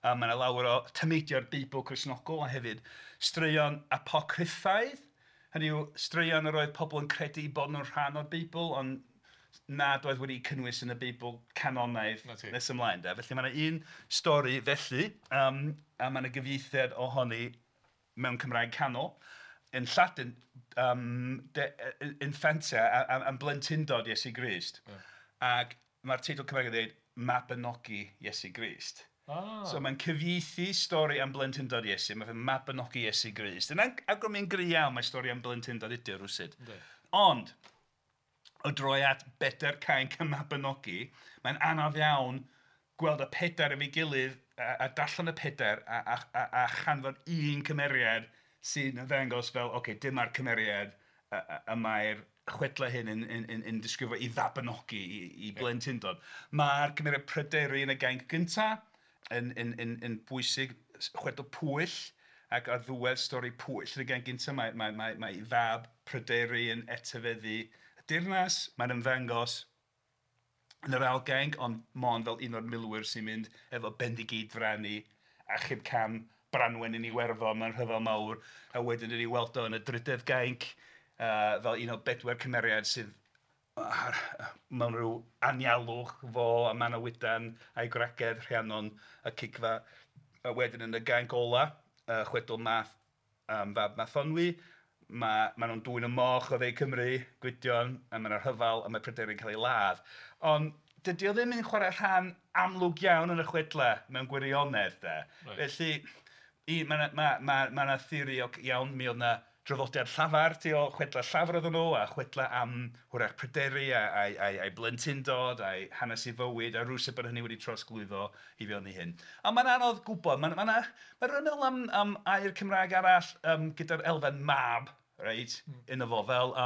Speaker 2: A mae yna lawer o tameidiau'r Beibl Cristnogol a hefyd straeon apocryffaidd. Hynny yw, straeon yr oedd pobl yn credu bod nhw'n rhan o'r Beibl, ond nad oedd wedi cynnwys yn y Beibl canonaidd
Speaker 3: 'Na ti.
Speaker 2: nes ymlaen. De. Felly mae yna un stori felly, a mae yna gyfieithiad ohoni mewn Cymraeg canol. Yn Lladin, de, infantia, am blentyndod Iesu Grist. Ac mae'r teitl Cymraeg yn dweud Mabinogi Iesu Grist. So mae'n cyfieithu stori am blentyndod Iesu, mae'n Mabinogi Iesu Grist. Yn awgrymu'n gry iawn mae stori am blentyndod ydy o rywsut. Ond, o droi at bedair cainc y Mabinogi, mae'n anodd iawn gweld y pedair efo'i gilydd a darllen y pedair a chanfod un cymeriad sy'n ymddangos fel, ocê, dyma'r cymeriad y mae'r chwedlau hyn yn disgrifio i fabinogi, i blentyndod. Mae'r cymeriad Pryderi yn y gainc gyntaf yn bwysig, chwedl Pwyll, ac ar ddiwedd stori Pwyll yn y gainc gyntaf, mae fab Pryderi yn etifeddu y deyrnas. Mae'n ymddangos yn yr ail gainc, ond mond fel un o'r milwyr sy'n mynd efo Bendigeidfran i achub cam Branwen yn Iwerddon mewn rhyfel mawr, a wedyn yn ei weld o yn y drydedd gainc, fel un o bedwar cymeriad sydd mewn rhyw anialwch fo a Manawydan a'i gwragedd Rhiannon a Cigfa. A wedyn yn y gainc ola, chwedl Math, fab Mathonwy, ma' nhw'n dwyn y moch o dde Cymru, Gwydion, a mae 'na rhyfel a mae Pryderi'n cael ei ladd. Ond dydy o ddim yn chwarae rhan amlwg iawn yn y chwedlau mewn gwirionedd de. Felly, mae 'na theori o, iawn, mi oedd 'na draddodiad llafar tu ôl chwedlau llafar oedden nhw, a chwedlau am hwyrach Pryderi a'i blentyndod, a'i hanes ei fywyd, a rywsut bod hynny wedi trosglwyddo i fewn i hyn. Ond mae'n anodd gwybod, mae'n rhywun meddwl am air Cymraeg arall gyda'r elfen mab, reit, yno fo, fel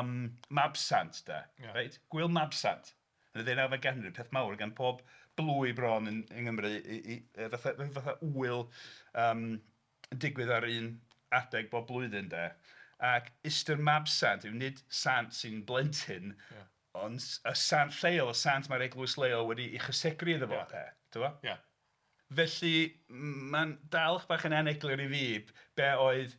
Speaker 2: Mabsant, de, reit? Gwyl Mabsant. Yn y ddeunawfed ganrif, peth mawr gan pob blwy bron yng Nghymru, fatha wyl yn digwydd ar un adeg bob blwyddyn, de. Ac ystyr Mabsant yw nid sant sy'n blentyn, ond y sant lleol, y sant mae'r eglwys leol wedi ei chysegru iddo fo, de. T'bo? Felly, mae'n dal bach yn aneglur i fi be oedd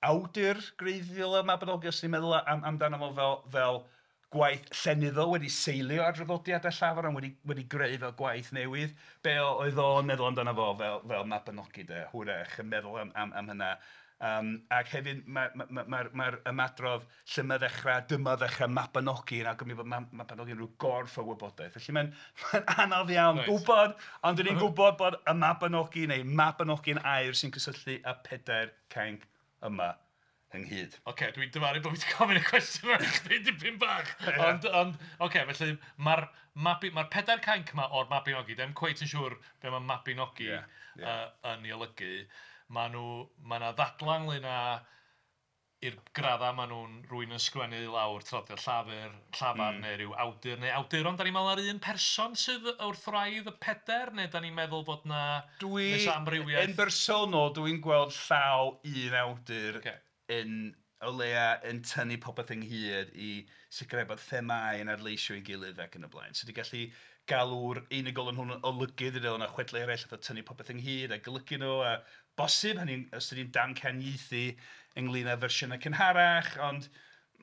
Speaker 2: awdur gwreiddiol y Mabinogi, os ni'n meddwl amdano fo fel gwaith llenyddol wedi seilio ar draddodiadau llafar ond wedi greu fel gwaith newydd. Be oedd o'n meddwl amdano fo fel Mabinogi de, hwyrach yn meddwl am hynna. Ac hefyd mae'r ymadrodd lle mae ddechrau, dyma ddechrau Mabinogi yn awgrymu bod Mabinogi yn rhyw gorff o wybodaeth. Felly mae'n anodd iawn gwybod, ond dan ni'n gwybod bod y Mabinogi neu Mabinogi'n air sy'n cysylltu â pedair cainc yma ynghyd.
Speaker 3: Oce, dwi'n dyfaru bod fi wedi gofyn y cwestiwn yma i chdi dipyn bach. Ond oce, felly mae'r pedair cainc yma o'r Mabinogi, ddim cweit yn siŵr be mae Mabinogi yn ei olygu. Mae 'na ddadlau ynglyn â i'r graddau maen nhw'n rwy'n yn sgwennu lawr traddodiad llafur, llafar neu rhyw awdur neu awduron. Da ni'n meddwl ar un person sydd wrth wraidd y pedair, neu da ni'n meddwl fod na
Speaker 2: Dwi,
Speaker 3: nes amrywiaeth?
Speaker 2: Yn bersonol, dwi'n gweld llaw un awdur yn o leia yn tynnu popeth ynghyd i sicrhau bod themâu yn adleisio ei gilydd ac yn y blaen. So ti'n gallu galw'r unigolyn hwn yn olygydd, i ddweud, yna chwedlau eraill, fatha tynnu popeth ynghyd a golygu nhw, a bosib, hynny, os ydy'n damcaniaethu ynglyn â fersiynau cynharach, ond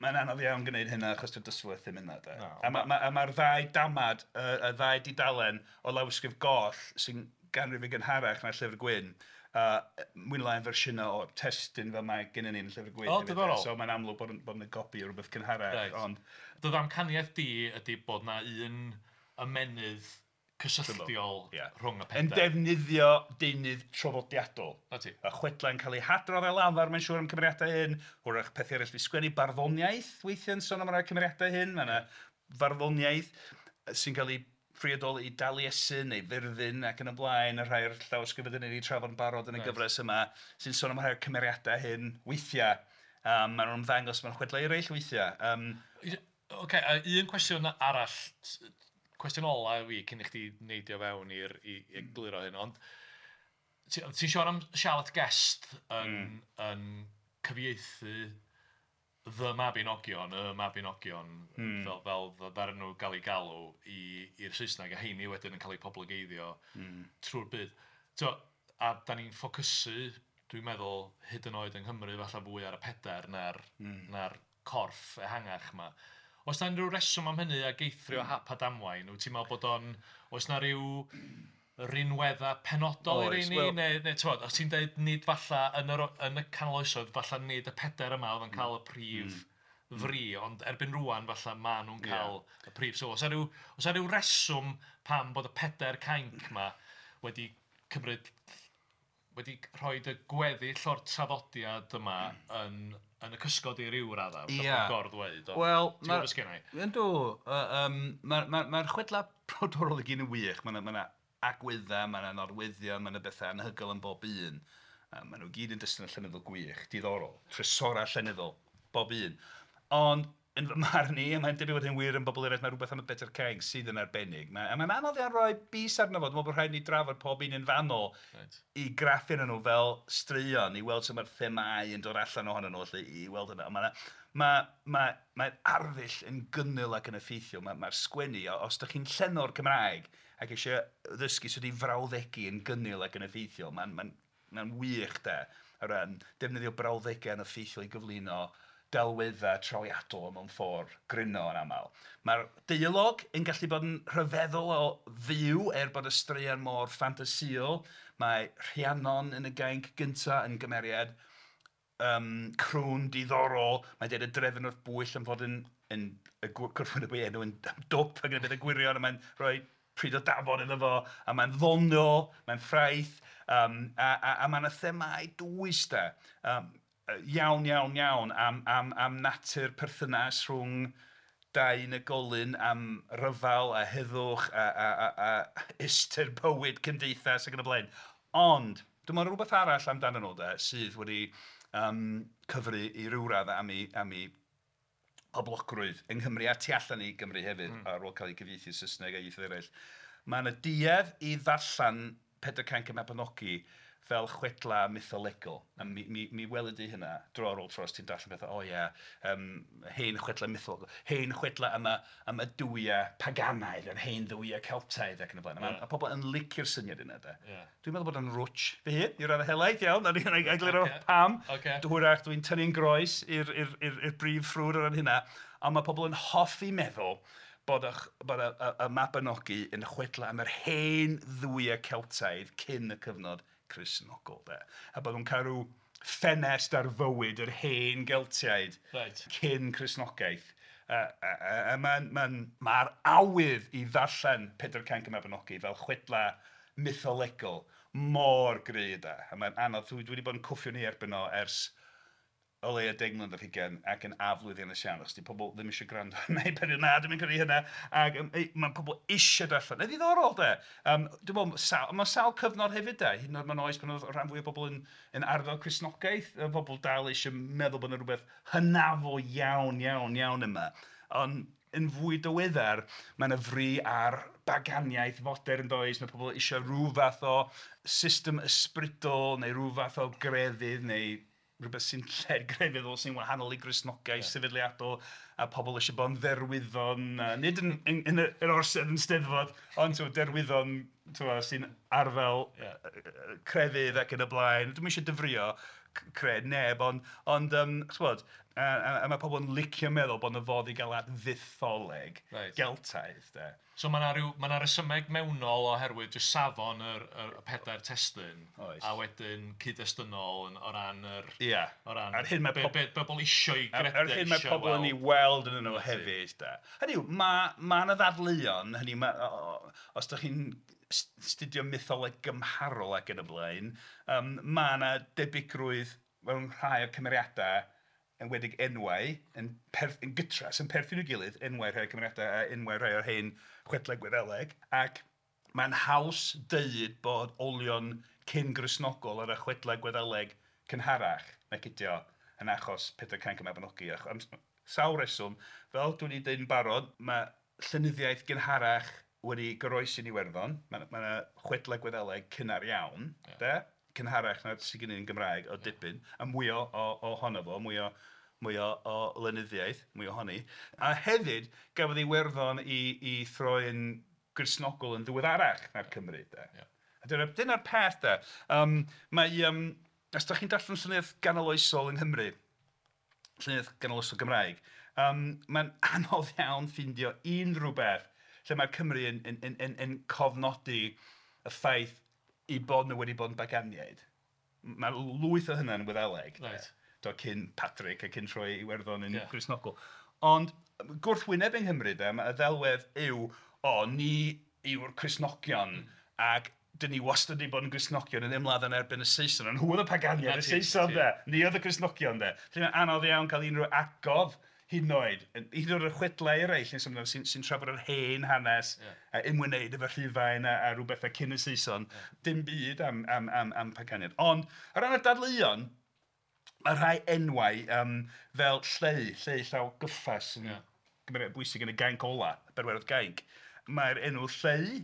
Speaker 2: mae'n anodd iawn gwneud hynna achos dy'r dysgwyr ddim yna. De.
Speaker 3: No,
Speaker 2: a mae'r ma ddau damad, y ddau dudalen o lawysgrif goll sy'n ganrif yn gynharach na'r Llyfr Gwyn, mwy neu lai yn fersiynau o'r testun fel mae gennym ni yn y Llyfr Gwyn.
Speaker 3: O, diddorol.
Speaker 2: So mae'n amlwg bod yna gopi o rhywbeth cynharach.
Speaker 3: Right.
Speaker 2: Ond
Speaker 3: Dy ddamcaniaeth di ydy bod na un ymennydd cysylltiol rhwng y
Speaker 2: yn
Speaker 3: pedair.
Speaker 2: defnyddio deunydd traddodiadol.
Speaker 3: Na ti.
Speaker 2: Y chwedlau'n cael eu hadrodd ar lafar, mae'n siŵr am cymeriadau hyn. Hwyrach pethau eraill fi sgwennu, barddoniaeth weithiau'n sôn am rai cymeriadau hyn. Mae yna farddoniaeth sy'n cael ei phriodoli i Daliesin neu Fyrddin ac yn y blaen, y rhai o'r llawysgrifau ni wedi trafod yn barod yn y gyfres yma, sy'n sôn am rhai o'r cymeriadau hyn weithiau. Maen nhw'n ymddangos mewn chwedlau eraill weithiau.
Speaker 3: Ocê, a un cwestiwn arall, cwestiwn ola i fi cyn i chdi neidio fewn i'r i egluro hyn, ond ti'n siarad am Charlotte Guest yn cyfieithu The Mabinogion, y Mabinogion, fel ddaru nhw gael eu galw i'r Saesneg, a heini wedyn yn cael eu poblogeiddio trwy'r byd. So, a da ni'n ffocysu, dwi'n meddwl, hyd yn oed yng Nghymru, falle fwy ar y pedair na'r corff ehangach yma. Oes na unrhyw reswm am hynny ag eithrio hap a damwain? Wyt ti'n meddwl bod o'n... Oes na ryw rinweddau penodol i'r
Speaker 2: Oes,
Speaker 3: rheini?
Speaker 2: wel
Speaker 3: Neu ti'n os ti'n deud nid falla yn y canol oesoedd, falla nid y pedair yma oedd yn cael y prif fri, ond erbyn rŵan falla maen nhw'n cael y prif sylw. Oes 'na ryw reswm pam bod y pedair cainc yma wedi cymryd, wedi rhoi y gweddill o'r traddodiad yma yn y cysgod i ryw raddau?
Speaker 2: Ie.
Speaker 3: Yeah. Gor-ddweud, ond
Speaker 2: Wel,
Speaker 3: ti'n gwybod beth sgen i?
Speaker 2: Yndw, mae'r chwedlau brodorol i gyd yn wych. Mae yna agweddau, mae yna nodweddion, mae yna bethau anhygoel yn bob un. Maen nhw gyd yn destun llenyddol gwych, diddorol, trysorau llenyddol, bob un. Ond yn fy marn i, a mae'n debyg bod hyn wir yn bobl eraill, mae rhywbeth am y Bedair Cainc sydd yn arbennig. A mae'n anodd iawn rhoi bys arno fo, dwi'n meddwl bod rhaid i ni drafod pob un yn fanol i graffu arnyn nhw fel straeon, i weld sut mae'r themâu yn dod allan ohonyn nhw, felly, i weld hynna. Mae'r arddull yn gynnil ac yn effeithiol, mae'r sgwennu, os ydych chi'n llenor Cymraeg ac eisiau ddysgu sut i frawddegu yn gynnil ac yn effeithiol, mae'n wych de, o ran defnyddio brawddegau yn effeithiol i gyflwyno delweddau trawiadol mewn ffordd gryno yn aml. Mae'r deialog yn gallu bod yn rhyfeddol o fyw er bod y straeon mor ffantasïol. Mae Rhiannon yn y gainc gyntaf yn gymeriad crwn diddorol. Mae'n deud y drefn wrth bwyll am fod yn y gwrthwyneb o'i enw yn dwp ac yn y beth y gwirion, a mae'n rhoi pryd o dafod iddo fo, a mae'n ddoniol, mae'n ffraeth, a mae yna themâu dwys de. Iawn, iawn, iawn am natur perthynas rhwng dau unigolyn, am ryfel a heddwch a ystyr bywyd cymdeithas ac yn y blaen. Ond, dwi'n meddwl rhywbeth arall amdanyn nhw de, sydd wedi cyfri i ryw radd am ei poblogrwydd yng Nghymru a tu allan i Gymru hefyd, ar ôl cael ei gyfieithu Saesneg a ieithoedd eraill. Mae yna duedd i ddarllen Pedair Cainc y Mabinogi fel chwedla mytholegol. A mi welyd i hynna dro ar ôl tro os ti'n darllen pethau, o ie, hen chwedla mytholegol, hen chwedla am y duwiau paganaidd, yr hen dduwiau Celtaidd ac yn y blaen. A pobl yn licio'r syniad yna, de. Dwi'n meddwl bod o'n rwtsh fy hun, i raddau helaeth iawn, a ni'n egluro pam. Hwyrach dwi'n tynnu'n groes i'r brif ffrwd o ran hynna, ond mae pobl yn hoffi meddwl bod y Mabinogi yn chwedla am yr hen dduwiau Celtaidd cyn y cyfnod Cristnogol, de. A bod nhw'n cael rhyw ffenest ar fywyd yr hen Geltiaid cyn Cristnogaeth. A mae'r awydd i ddarllen Pedair Cainc y Mabinogi fel chwedla mytholegol mor gry, de. A mae'n anodd, dwi wedi bod yn cwffio ni erbyn o ers o leia 10 mlynedd ar hugain ac yn aflwyddiannus iawn, achos 'di pobl ddim eisiau gwrando arna i pan na, dwi'm yn credu hynna, ac mae pobl eisiau darllen. Yn ddiddorol de, dwi'n meddwl, mae sawl cyfnod hefyd de, hyd yn oed mewn oes pan oedd rhan fwyaf o bobl yn arddel Cristnogaeth, oedd pobl dal eisiau meddwl bod yna rhywbeth hynafol iawn, iawn, iawn yma. Ond yn fwy diweddar, mae yna fri ar baganiaeth fodern does, mae pobl eisiau rhyw fath o system ysbrydol neu rhyw fath o grefydd neu rhywbeth sy'n lled grefyddol sy'n wahanol i Gristnogaeth sefydliadol, a pobl eisiau bod yn dderwyddon, nid yn yr orsedd yn Steddfod, ond derwyddon sy'n arddel crefydd ac yn y blaen. Dwi'm eisiau dyfrio cred neb, ond ch'bod, a mae pobl yn licio meddwl bod 'na fodd i gael at fytholeg Geltaidd de.
Speaker 3: So mae 'na ryw... mae 'na resymeg mewnol oherwydd jyst safon yr pedair testun.
Speaker 2: Oes.
Speaker 3: A wedyn cyd-destynol yn, o ran yr...
Speaker 2: Ia.
Speaker 3: O ran
Speaker 2: A'r hyn mae
Speaker 3: be bobl isio'i gredu,
Speaker 2: A'r hyn mae pobl yn ei weld yn nhw hefyd de. Hynny yw, mae 'na ddadleuon, hynny yw, os dach chi'n astudio mytholeg gymharol ac yn y blaen, mae 'na debygrwydd mewn rhai o'r cymeriadau, enwedig enwau, yn gytras, yn perthyn i'w gilydd, enwau rhai o'r cymeriadau a enwau rhai o'r hen chwedlau Gwyddeleg, ac mae'n haws deud bod olion cyn-Gristnogol ar y chwedlau Gwyddeleg cynharach nag ydi o yn achos Pedair Cainc y Mabinogi. Am sawl rheswm, fel dwi 'di deud yn barod, mae llenyddiaeth gynharach wedi goroesi yn Iwerddon, mae 'na chwedlau Gwyddeleg cynnar iawn, de, cynharach na sydd gen ni yn Gymraeg o dipyn, a mwy ohono fo, mwy o lenyddiaeth, mwy ohoni. A hefyd, gafodd Iwerddon ei throi'n Gristnogol yn ddiweddarach na'r Cymry de. A dyna'r peth de. Mae, os dach chi'n darllen llenyddiaeth ganoloesol yng Nghymru, llenyddiaeth ganoloesol Gymraeg, mae'n anodd iawn ffeindio unrhyw beth lle mae'r Cymry yn cofnodi y ffaith eu bod nhw wedi bod yn baganiaid. Mae lwyth o hynna yn Wyddeleg. Do, cyn Patrick a cyn troi Iwerddon yn Gristnogol. Ond gwrthwyneb yng Nghymru de, mae y ddelwedd yw, o, ni yw'r Cristnogion ac dyn ni wastad wedi bod yn Gristnogion yn ymladd yn erbyn y Saeson. Ond nhw oedd y paganiaid, y Saeson de. Ni oedd y Cristnogion de. Felly mae'n anodd iawn cael unrhyw atgof hyd yn oed, hyd yn oed y chwedlau eraill sy'n trafod yr hen hanes a ymwneud efo Rhufain a rhyw bethau cyn y Saeson, dim byd am paganiaid. Ond o ran y dadleuon, mae rhai enwau fel Lleu, Lleu Llaw Gyffes yn gymeriad bwysig yn y Gainc Ola, y Bedwerydd Gainc. Mae'r enw Lleu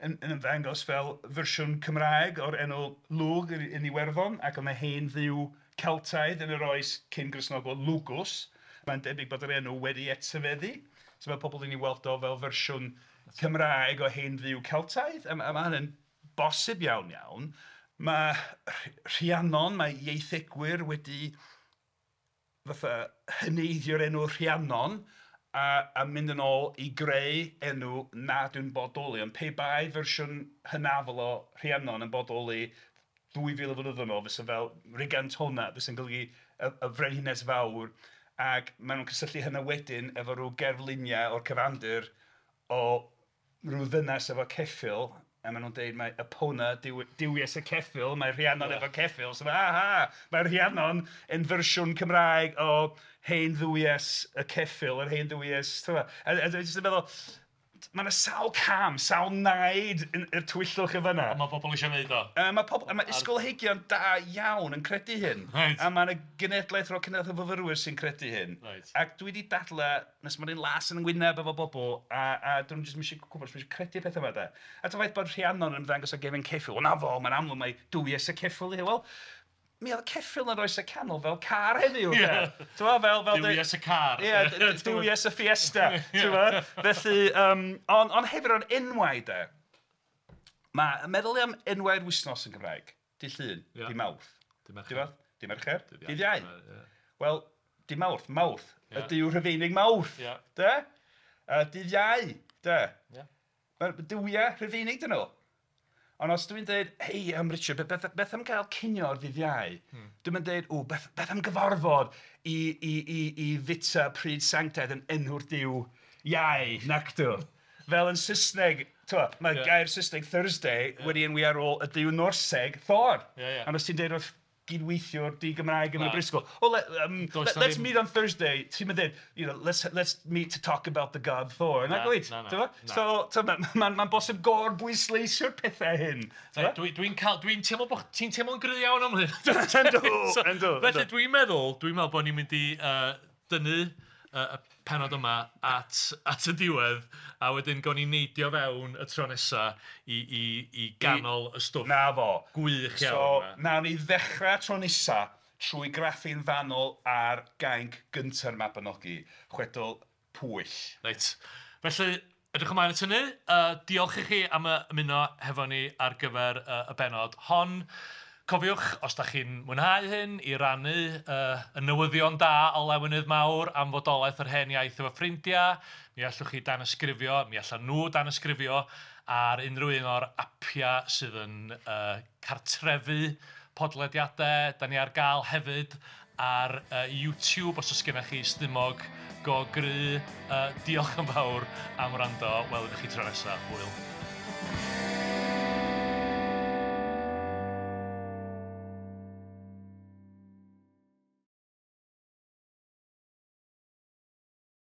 Speaker 2: yn ymddangos fel fersiwn Cymraeg o'r enw Lugh yn Iwerddon, ac oedd 'na hen dduw Celtaidd yn yr oes cyn Gristnogol, Lugus. Mae'n debyg bod yr enw wedi etifeddu. So mae pobl yn ei weld o fel fersiwn Cymraeg o hen dduw Celtaidd. A mae hynny'n bosib iawn iawn. Mae Rhiannon, mae ieithegwyr wedi fatha heneiddio'r enw Rhiannon a mynd yn ôl i greu enw nad yw'n bodoli. Ond pe bai fersiwn hynafol o Rhiannon yn bodoli 2000 o flynyddoedd yn ôl, fysa fel Rigantona, fysa'n golygu y frenhines fawr. Ac maen nhw'n cysylltu hynna wedyn efo rhyw gerfluniau o'r cyfandir o rhyw ddynes efo ceffyl, a maen nhw'n dweud mai Epona, duwies y ceffyl, mae Rhiannon efo ceffyl. So aha, mae Rhiannon yn fersiwn Cymraeg o hen dduwies y ceffyl, yr hen dduwies. A dwi'n jyst yn meddwl, mae yna sawl cam, sawl naid i'r tywyllwch yn fan'na.
Speaker 3: Ond mae pobl eisiau gwneud o.
Speaker 2: Mae pobl, a mae ysgolheigion da iawn yn credu hyn. A mae yna genedlaeth ar ôl cenedlaeth o fyfyrwyr sy'n credu hyn. Ac dwi wedi dadlau, nes mae'n un las yn ngwyneb efo bobl, a dyn nhw jyst ddim eisiau gwybod, ddim eisiau credu pethau yma de. A dyma ffaith bod Rhiannon yn ymddangos o gefn ceffyl. Wel na fo, mae'n amlwg mai duwies y ceffyl yw hi. Wel, mi oedd ceffyl yn oes y canol fel car heddiw.
Speaker 3: Ie. Duwies y car.
Speaker 2: Ie, duwies y Fiesta. Felly, ond hefyd o'r enwau de, mae meddwl am enwau'r wythnos yn Gymraeg, Dydd Llun, Dydd Mawrth, Dydd Mercher, Dydd Iau. Wel, Dydd Mawrth, Mawrth, y duw Rhufeinig Mawrth, de? Dydd Iau, de? Mae'r duwiau Rhufeinig dyn nhw. Ond os dwi'n dweud, hei, Richard, beth am gael cinio ar ddydd Iau? Dwi'n mynd dweud, o, beth am gyfarfod i fita pryd sanctaidd yn enw'r duw Iau, nacdw. Fel yn Saesneg, mae gair Saesneg Thursday wedi enwi ar ôl y duw Norseg, Thor. Ond os ti'n dweud wrth gydweithiwr di-Gymraeg yn y brifysgol. "Oh, let's meet on Thursday." Ti'n mynd dweud, "Let's meet to talk about the god Thor." Na, gwyt? So, mae'n ma bosib gorbwysleisio'r pethau hyn.
Speaker 3: Dwi'n dwi teimlo bod ti'n teimlo'n gry iawn am hyn.
Speaker 2: Yndw.
Speaker 3: Felly dwi'n meddwl bod ni'n mynd i dynnu y penod yma at y diwedd a wedyn gawn ni neidio fewn y tro nesa i ganol y stwff.
Speaker 2: Na fo.
Speaker 3: Gwych iawn.
Speaker 2: So, nawn ni ddechrau tro nesa trwy graffu'n fanwl ar gainc gynta'r Mabinogi, chwedl Pwyll.
Speaker 3: Reit. Felly, edrych ymlaen at hynny. Diolch i chi am ymuno hefo ni ar gyfer y benod hon. Cofiwch, os da chi'n mwynhau hyn, i rannu y newyddion da o lawenydd mawr am fodolaeth yr Hen Iaith efo ffrindiau. Mi allwch chi danysgrifio, mi allan nhw danysgrifio ar unrhyw un o'r apiau sydd yn cartrefu podlediadau. Da ni ar gael hefyd ar YouTube os oes gennych chi stumog go gry. Diolch yn fawr am wrando. Welwn i chi tro nesaf. Hwyl.